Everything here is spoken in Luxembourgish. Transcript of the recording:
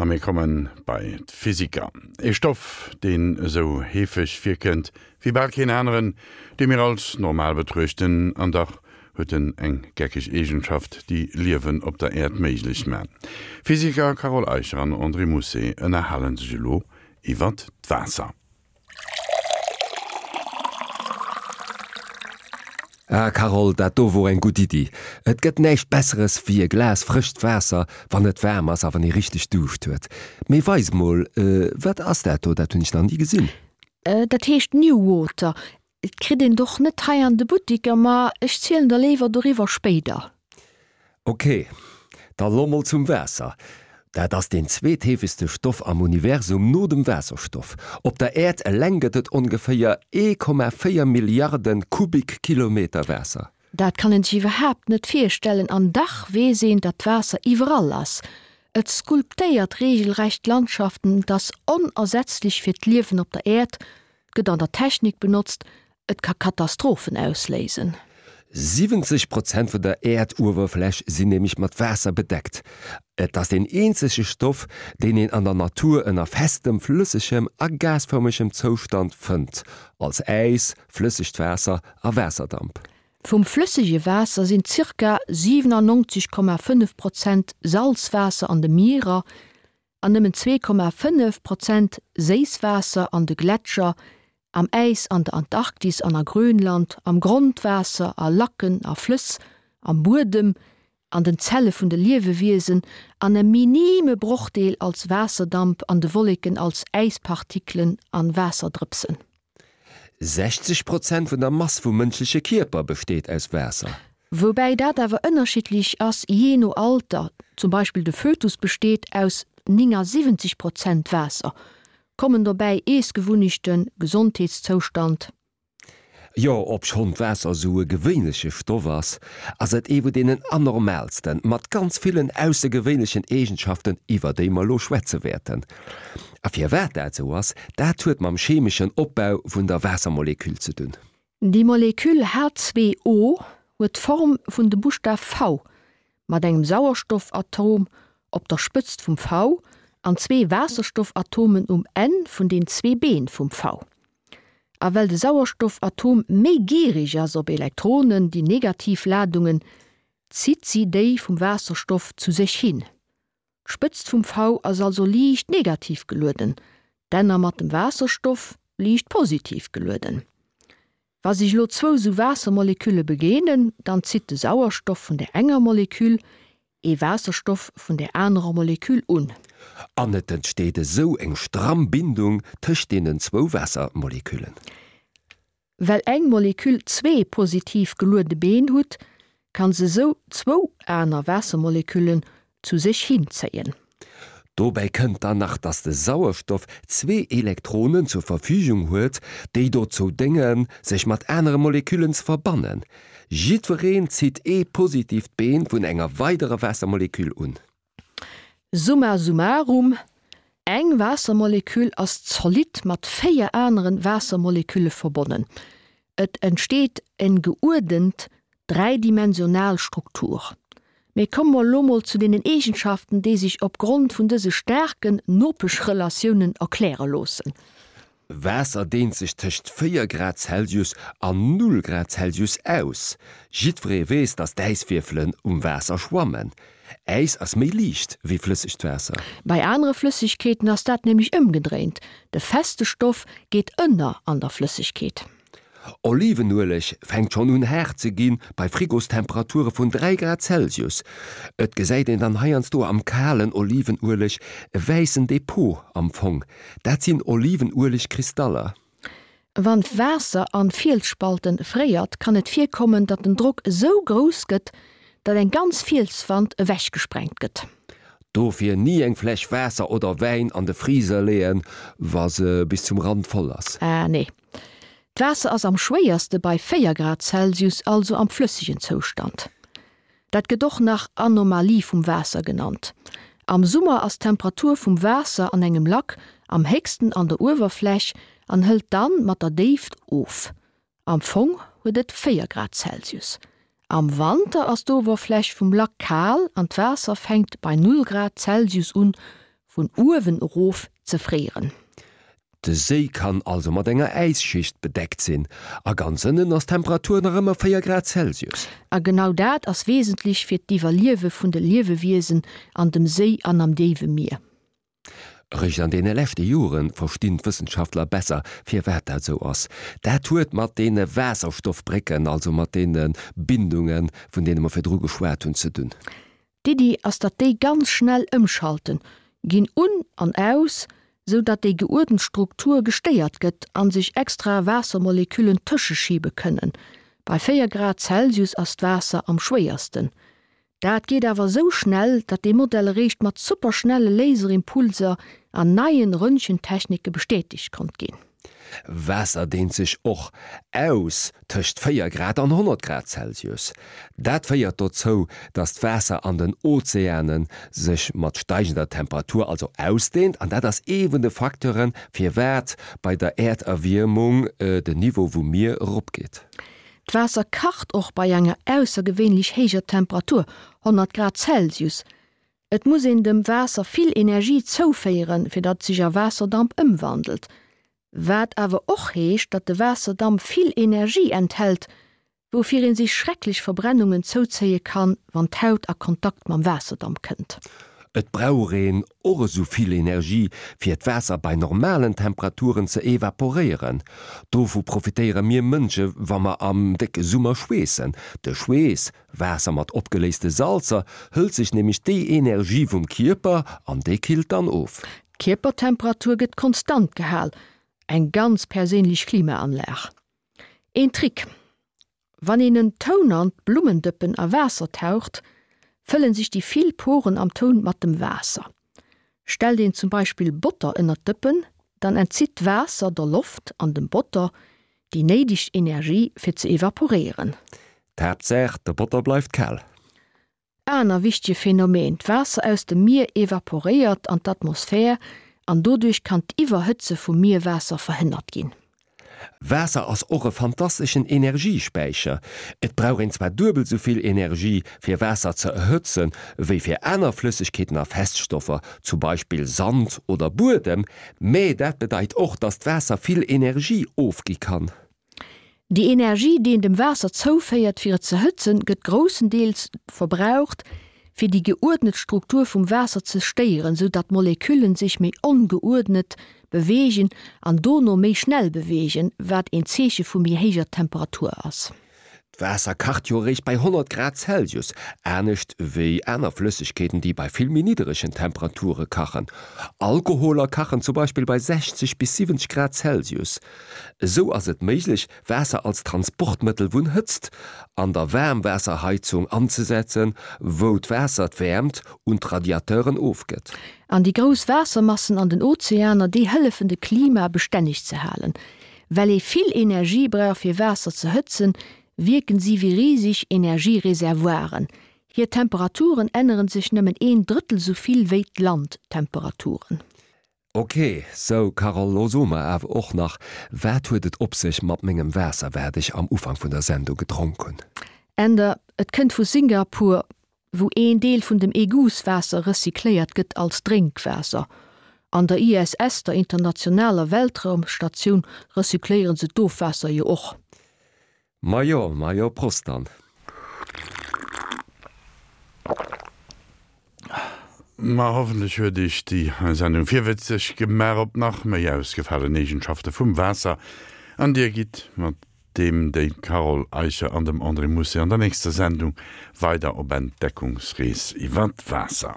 A mir komme bei d'Physiker. Ee Stoff, deen esou heefeg virkënnt wéi bal keen aneren, dee mir als normal betruechten, an dach huet en eng geckeg Eegenschaft, déi Liewen op der Äerd méiglech man. D'Physiker Carole Eicher an André Mousset ënnerhale sech elo iwwert d'Waasser. Ah Carole, dat do wor eng gutt Iddi. Et gëtt näischt besseres wéi e Glas frëscht Waasser, wann et waarm ass a wann ee richteg Duuscht huet. Mee weis mol, wat ass dat do? Dat hunn ech nach ni gesinn. Dat heescht New Water. Et kritt een et och net hei an de Buttiker, ma ech zielen der léiwer doriwwer spéider. Ok, da lo mol zum Waasser. Dat ass deen zweetheefegste Stoff am Universum no dem Waasserstoff. Op der Äerd eleng gëtt et ongeféier 1,4 Milliarde Kubikkilometer Waasser. Dat kann een sech iwwerhaapt net virstellen, an dach weess een, datt Waasser iwwerall ass. Et sculptéiert reegelrecht Landschaften, et ass onersetzlech fir d'Liewen op der Äerd, gëtt an der Technik benotzt, et ka Katastrophen ausléisen. 70 Prozent vun der Äerduewerfläch sinn nämlech mat Waasser bedeckt. Et ass deen eenzege Stoff, deen een an der Natur ënner festem, flëssegem a gasfërmegem Zoustand fënnt, als Äis, flëssegt Waasser a Waasserdamp. Vum flëssege Waasser sinn zirka 97,5 Prozent Salzwaasser an de Mierer an nëmmen 2,5 Prozent Séisswaasser an de Gletscher, am Äis an der Antarktis an a Grönland, am Grondwaasser, a Lacken a Flëss, am Buedem, an den Zelle vun de Liewewiesen an e minime Brochdeel als Waasserdamp an de Wolleken als Äispartikelen an Waasserdrëpsen. 60 Prozent vun der Mass vum mënschleche Kierper besteet aus Waasser. Woubäi dat awer ënnerschiddlech ass jee no Alter, zum Beispill de Fötus besteet aus 79 Prozent Waasser. Kommen dobäi Iessgewunnechten, Gesondheetszoustand. Jo, obschonn d'Waasser esou e gewéinleche Stoff ass, ass et ee vu deenen anormaalsten, mat ganz villen aussergewéinlechen Eegenschaften, iwwer déi mer elo schwätze wäerten. A firwat dat esou ass, dat huet mam chemeschen Opbau vun der Waassermoleküll ze dunn. Déi Moleküll H2O huet d'Form vun dem Buschtaf V, mat engem Sauerstoffatom op der Spëtzt vum V an zwee Waasserstoffatomen um Enn vun den zwee Been vum V. A well de Sauerstoffatom méi gierig ass op Elektronen, déi negativ Ladungen, zitt si déi vum Waasserstoff zu sech hin. D'Spëtzt vum V ass also liicht negativ gelueden, d'Enner mat dem Waasserstoff liicht positiv gelueden. Wa sech elo zwou sou Waassermolekülle begéinen, dann zitt de Sauerstoff vun der enger Moleküll ee Waasserstoff vun der anerer Moleküll un. An et entsteet esou eng stramm Bindung tëscht deenen zwou Waassermoleküllen. Well eng Moleküll zwee positiv geluede Been hutt, kann se sou zwou aner Waassermoleküllen zu sech hinzéien. Dobäi kënnt dann nach, dass de Sauerstoff zwee Elektronen zur Verfügung huet, déi dozou déngen, sech mat anere Moleküllen ze verbannen. Jiddwereen zitt ee positiivt Been vun enger weiderer Waassermoleküll un. Summa summarum, Eng Waassermoleküll ass zolidd mat 4 aneren Waassermolekülle verbonnen. Et entsteet en geuerdent dräidimensional Struktur. Mee komme mer elo mol zu deenen Eegenschaften, déi sech opgrond vun dëse staarken Nopeschrelatiounen erkläre loossen. Waasser deent sech tëscht 4 Grad Celsius an 0 Grad Celsius aus. Jiddweree weess, dass d'Äiswierfelen um Waasser schwammen. Äis ass méi liicht wéi flëssegt Waasser. Bei anere Flëssegkeeten ass dat nämlech ëmgedréint, de feste Stoff geet ënner an der Flëssegkeet. Olivenueleg fänkt schonn un haart ze ginn bei Frigostemperature vun 3 Grad Celsius. Et gesäit een dann heiansdo am kalen Olivenueleg e wäissen Depot am Fong. Dat sinn Olivenuelegkristaller. Wann d'Waasser an Fielsspalten fréiert, kann et virkommen, datt den Drock esou grouss gëtt, datt eng ganz Fielswand ewechgesprengt gëtt. Dofir ni eng Fläsch Waasser oder Wäin an de Freezer leeën, wa se bis zum Rand voll ass. Ah nee. D'Waasser ass am schwéierste bei 4 Grad Celsius, also am flëssegen Zoustand. Dat gëtt och nach Anomalie vum Waasser genannt. Am Summer ass d'Temperatur vum Waasser an engem Lack am héchsten an der Uewerfläch an hëlt dann mat der Déift of. Am Fong huet et 4 Grad Celsius. Am Wanter ass d'Owerfläch vum Lack kal an d'Waasser fänkt bei 0 Grad Celsius un. Vun uewen erof ze fréieren. De Séi kann also mat enger Äisschicht bedeckt sinn, a ganz ënnen ass d'Temperatur nach ëmmer 4 Grad Celsius. A genau dat ass wesentlech fir d'Iwwerliewe vun de Liewewiesen an dem Séi an am déiwe Mier. Eréischt an deene leschte Jore verstinn d'Wëssenschaftler besser, firwat dat esou ass. Dat huet mat deene Waasserstoffbrécken, also mat deene Bindungen, vun deene mer virdru geschwat hunn, ze dunn. D'Iddi ass datt déi ganz schnell ëmschalten, ginn un an aus, sou datt déi geuerdent Struktur gestéiert gëtt an sech extra Waassermoleküllen tëscheschiebe kënnen. Bei 4 Grad Celsius ass d'Waasser am schwéiersten. Dat geet awer sou schnell, datt dee Modell eréischt mat superschnelle Laserimpulser an neien Röntgentechnike bestätegt konnt ginn. Waasser deent sech och aus tëscht 4 Grad an 100 Grad Celsius. Dat féiert dozou, datt d'Waasser an den Ozeane sech mat steigender Temperatur also ausdeent an dat ass ee vun de Facteuren, firwat bei der Äerderwiermung den Niveau vum Mier eropgeet. D'Waasser kacht och bei enger aussergewéinlech héijer Temperatur, 100 Grad Celsius. Et muss een dem Waasser vill Energie zouféieren, fir datt et sech a Waasserdamp ëmwandelt. Wat awer och heescht, datt de Waasserdamp vill Energie enthält, woufir een sech schrecklech Verbrennungen zouzéie kann, wann d'Haut a Kontakt mam Waasserdamp kënnt. Et brauch een och esou vill Energie, fir d'Waasser bei normalen Temperaturen ze evaporéieren. Dovu profitéiere mir Mënsche wa mer am décke Summer schweessen. De Schweess Waasser mat opgeléiste Salzer hëlt sech nämlech déi Energie vum Kierper an dee killt dann of. D'Kierpertemperatur gëtt konstant gehal, eng ganz perséinlech Klimaanlag. Een Trick, Wann een en Tounant Blummendëppen a Waasser taucht, fëllen sech déi vill Poren am Toun mat dem Waasser. Stellt een zum Beispill Botter ënnert d'Dëppen, dann entzitt d'Waasser der Loft an dem Botter déi néideg Energie fir ze evaporéieren. D'Haaptsaach, de Botter bleift kal. Aner wichtege Phänomen, D'Waasser aus dem Mier evaporéiert an d'Atmosphär an doduerch kann d'Iwwerhëtze vum Mierwaasser verhënnert ginn. Waasser ass och e fantasteschen Energiespäicher. Et brauch een zwar duebel sou vill Energie fir Waasser ze erhëtzen, wéi fir aner Flëssegkeeten a Feststoffer, zum Beispill Sand oder Buedem, mä dat bedeit och, dass d'Waasser vill Energie ofgi kann. Déi Energie, déi een dem Waasser zouféiert fir et ze hëtzen, gëtt groussendeels verbraucht, fir déi geuerdnet Struktur vum Waasser ze stéieren, sou datt d'Moleküllen sech méi ongeuerdnet beweegen an dono méi schnell beweegen, wat een Zeeche vu méi héijer Temperatur ass. D'Waasser kacht jo eréischt bei 100 Grad Celsius, anescht wéi aner Flëssegkeeten, déi bei vill méi nidderegen Temperature kachen. Alkoholer kachen zum Beispill bei 60 bis 70 Grad Celsius. Esou ass et méiglech, Waasser als Transportmëttel vun Hëtzt an der Waarmwaasserheizung anzesetzen, wou d'Waasser d'Wäermt un d'Radiateuren ofgëtt. An déi grouss Waassermassen an den Ozeaner, déi hëllefen de Klima bestänneg ze halen. Well ee vill Energie brauch fir Waasser ze hëtzen, wierken si wéi riseg Energiereservoiren. Hir Temperaturen änneren sech nëmmen een Drëttel sou vill wéi d'Landtemperaturen. Ok, sou Carole, lo so mer awer och nach, wat huet et op sech mat mengem Waasser, wat ech am Ufank vun der Sendung gedronk hunn? Änder, Et kënnt vu Singapur, wou een Deel vun dem Égoutswaasser recycléiert gëtt als Drénkwaasser. An der ISS, der internationaler Weltraumstatioun, recycléiere se d'Ofwaasser jo och. Majo, majo, Prost dann! Ma hoffentlech huet Iech déi Sendung virwëtzeg gemaach op nach méi ausgefalen Eegenschafte vum Waasser an Dir gitt mat deem déi Carole Eicher an dem André Mousset an der nächster Sendung weider op Entdeckungsrees iwwer d'Waasser.